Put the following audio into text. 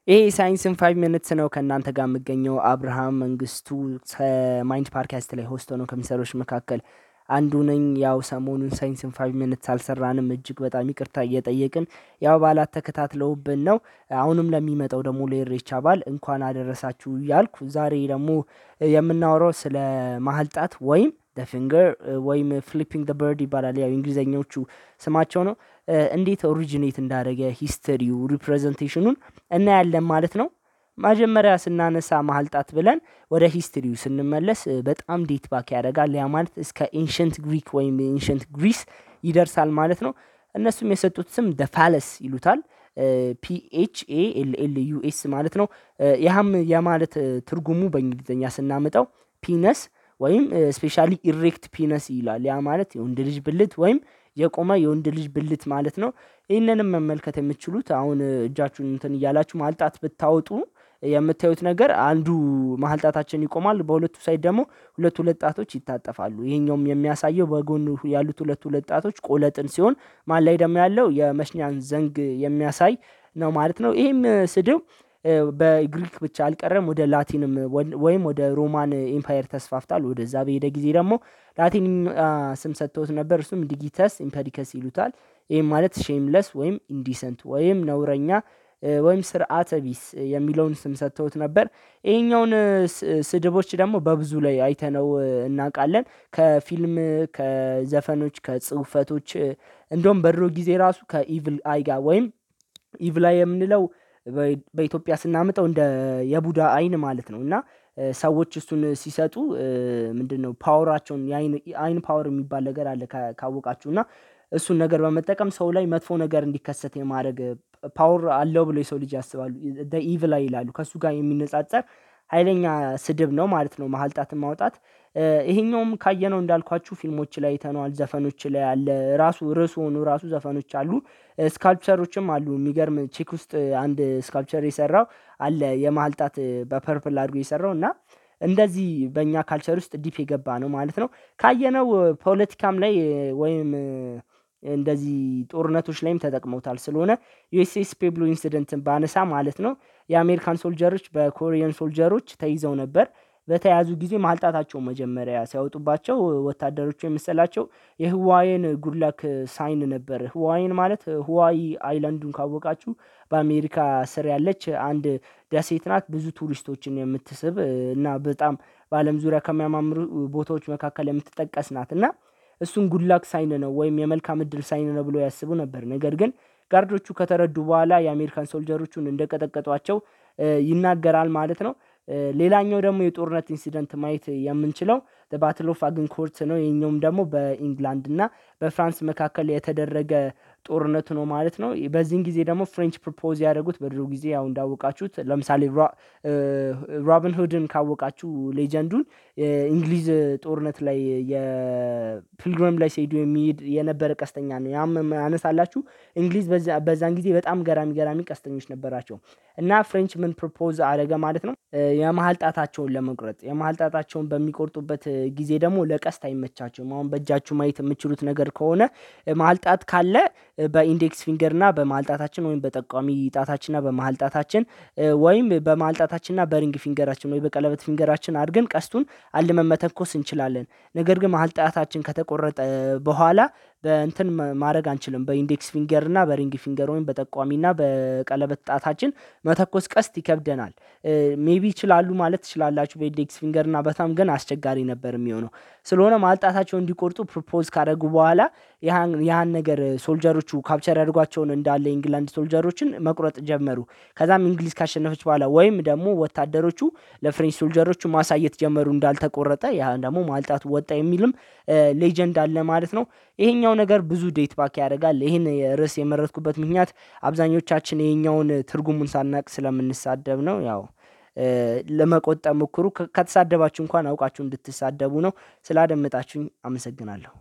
ይሄ ሳይንስን 5 ሚኒትስ ነው ከእናንተ ጋር የምገኘው አብርሃም መንግስቱ ከማይንድ ፓድካስት ላይ ሆስት ሆኖ ከሚሰሩት መካከል አንዱ ነኝ። ያው ሰሞኑን ሳይንስን 5 ሚኒትስ አልሰራንም፣ እጅግ በጣም ይቅርታ እየጠየቅን ያው በዓላት ተከታትለውብን ነው። አሁንም ለሚመጣው ደግሞ ለኢሬቻ በዓል እንኳን አደረሳችሁ እያልኩ ዛሬ ደግሞ የምናወራው ስለ መሀል ጣት ወይም ፊንገር ወይም ፍሊፒንግ በርድ ይባላል። ያው እንግሊዘኞቹ ስማቸው ነው። እንዴት ኦሪጂኔት እንዳደረገ ሂስተሪው ሪፕሬዘንቴሽኑን እናያለን ማለት ነው። መጀመሪያ ስናነሳ መሀል ጣት ብለን ወደ ሂስትሪው ስንመለስ በጣም ዴት ባክ ያደርጋል። ያ ማለት እስከ ኤንሸንት ግሪክ ወይም ኤንሸንት ግሪስ ይደርሳል ማለት ነው። እነሱም የሰጡት ስም ፋለስ ይሉታል። PHALLUS ማለት ነው። ያም የማለት ትርጉሙ በእንግሊዝኛ ስናመጣው ፒነስ ወይም ስፔሻሊ ኢሬክት ፒነስ ይላል። ያ ማለት የወንድ ልጅ ብልት ወይም የቆመ የወንድ ልጅ ብልት ማለት ነው። ይህንንም መመልከት የምትችሉት አሁን እጃችሁን እንትን እያላችሁ መሀል ጣት ብታወጡ የምታዩት ነገር አንዱ መሀል ጣታችን ይቆማል፣ በሁለቱ ሳይድ ደግሞ ሁለት ጣቶች ይታጠፋሉ። ይሄኛውም የሚያሳየው በጎን ያሉት ሁለት ጣቶች ቆለጥን ሲሆን መሀል ላይ ደግሞ ያለው የመሽኛን ዘንግ የሚያሳይ ነው ማለት ነው። ይሄም ስድብ በግሪክ ብቻ አልቀረም፣ ወደ ላቲንም ወይም ወደ ሮማን ኤምፓየር ተስፋፍቷል። ወደዛ በሄደ ጊዜ ደግሞ ላቲን ስም ሰጥተውት ነበር። እሱም ዲጊተስ ኢምፐዲከስ ይሉታል። ይህም ማለት ሼምለስ ወይም ኢንዲሰንት ወይም ነውረኛ ወይም ስርዓተ ቢስ የሚለውን ስም ሰጥተውት ነበር። ይሄኛውን ስድቦች ደግሞ በብዙ ላይ አይተነው እናውቃለን። ከፊልም፣ ከዘፈኖች፣ ከጽሁፈቶች እንደውም በድሮ ጊዜ ራሱ ከኢቭል አይ ጋር ወይም ኢቭል አይ የምንለው በኢትዮጵያ ስናመጣው እንደ የቡዳ አይን ማለት ነው። እና ሰዎች እሱን ሲሰጡ ምንድነው ፓወራቸውን የአይን ፓወር የሚባል ነገር አለ ካወቃችሁ እና እሱን ነገር በመጠቀም ሰው ላይ መጥፎ ነገር እንዲከሰት የማድረግ ፓወር አለው ብሎ የሰው ልጅ ያስባሉ። ኢቭል አይ ይላሉ። ከሱ ጋር የሚነጻጸር ኃይለኛ ስድብ ነው ማለት ነው መሀል ጣትን ማውጣት። ይሄኛውም ካየነው እንዳልኳችሁ ፊልሞች ላይ አይተነዋል፣ ዘፈኖች ላይ አለ። ራሱ ርዕሱ ሆኖ ራሱ ዘፈኖች አሉ፣ ስካልፕቸሮችም አሉ። የሚገርም ቼክ ውስጥ አንድ ስካልፕቸር የሰራው አለ የመሀል ጣት በፐርፕል አድርጎ የሰራው እና እንደዚህ በእኛ ካልቸር ውስጥ ዲፕ የገባ ነው ማለት ነው። ካየነው ፖለቲካም ላይ ወይም እንደዚህ ጦርነቶች ላይም ተጠቅመውታል። ስለሆነ ዩኤስኤስ ፔብሎ ኢንሲደንትን ባነሳ ማለት ነው የአሜሪካን ሶልጀሮች በኮሪያን ሶልጀሮች ተይዘው ነበር። በተያዙ ጊዜ መሀል ጣታቸውን መጀመሪያ ሲያወጡባቸው ወታደሮቹ የመሰላቸው የህዋይን ጉድላክ ሳይን ነበር። ህዋይን ማለት ህዋይ አይላንዱን ካወቃችሁ በአሜሪካ ስር ያለች አንድ ደሴት ናት። ብዙ ቱሪስቶችን የምትስብ እና በጣም በአለም ዙሪያ ከሚያማምሩ ቦታዎች መካከል የምትጠቀስ ናት እና እሱን ጉድላክ ሳይን ነው ወይም የመልካም እድል ሳይን ነው ብሎ ያስቡ ነበር። ነገር ግን ጋርዶቹ ከተረዱ በኋላ የአሜሪካን ሶልጀሮቹን እንደቀጠቀጧቸው ይናገራል ማለት ነው። ሌላኛው ደግሞ የጦርነት ኢንሲደንት ማየት የምንችለው ባትል ኦፍ አግንኮርት ነው። ይሄኛውም ደግሞ በኢንግላንድ እና በፍራንስ መካከል የተደረገ ጦርነት ነው ማለት ነው። በዚህን ጊዜ ደግሞ ፍሬንች ፕሮፖዝ ያደረጉት በድሮ ጊዜ ያው እንዳወቃችሁት ለምሳሌ ሮቢን ሁድን ካወቃችሁ ሌጀንዱን እንግሊዝ ጦርነት ላይ የፒልግሪም ላይ ሲሄዱ የሚሄድ የነበረ ቀስተኛ ነው። ያም አነሳላችሁ እንግሊዝ በዛን ጊዜ በጣም ገራሚ ቀስተኞች ነበራቸው እና ፍሬንች ምን ፕሮፖዝ አደረገ ማለት ነው የመሀል ጣታቸውን ለመቁረጥ። የመሀል ጣታቸውን በሚቆርጡበት ጊዜ ደግሞ ለቀስት አይመቻቸውም። አሁን በእጃችሁ ማየት የምችሉት ነገር ከሆነ መሀል ጣት ካለ በኢንዴክስ ፊንገር እና በመሀል ጣታችን ወይም በጠቋሚ ጣታችንና በመሀል ጣታችን ወይም በመሀል ጣታችንና በሪንግ ፊንገራችን ወይ በቀለበት ፊንገራችን አድርገን ቀስቱን አልመን መተኮስ እንችላለን። ነገር ግን መሀል ጣታችን ከተቆረጠ በኋላ በእንትን ማድረግ አንችልም። በኢንዴክስ ፊንገር እና በሪንግ ፊንገር ወይም በጠቋሚና በቀለበት ጣታችን መተኮስ ቀስት ይከብደናል። ሜቢ ይችላሉ ማለት ትችላላችሁ በኢንዴክስ ፊንገር እና በጣም ግን አስቸጋሪ ነበር የሚሆነው። ስለሆነ መሀል ጣታቸውን እንዲቆርጡ ፕሮፖዝ ካደረጉ በኋላ ያን ነገር ሶልጀሮቹ ካፕቸር ያድርጓቸውን እንዳለ ኢንግላንድ ሶልጀሮችን መቁረጥ ጀመሩ። ከዛም እንግሊዝ ካሸነፈች በኋላ ወይም ደግሞ ወታደሮቹ ለፍሬንች ሶልጀሮቹ ማሳየት ጀመሩ እንዳልተቆረጠ፣ ያ ደግሞ መሀል ጣቱ ወጣ የሚልም ሌጀንድ አለ ማለት ነው። ይሄኛው ነገር ብዙ ዴት ባክ ያደርጋል። ይሄን ርዕስ የመረጥኩበት ምክንያት አብዛኞቻችን ይሄኛውን ትርጉሙን ሳናቅ ስለምንሳደብ ነው። ያው ለመቆጠብ ሞክሩ። ከተሳደባችሁ እንኳን አውቃችሁ እንድትሳደቡ ነው። ስላደመጣችሁኝ አመሰግናለሁ።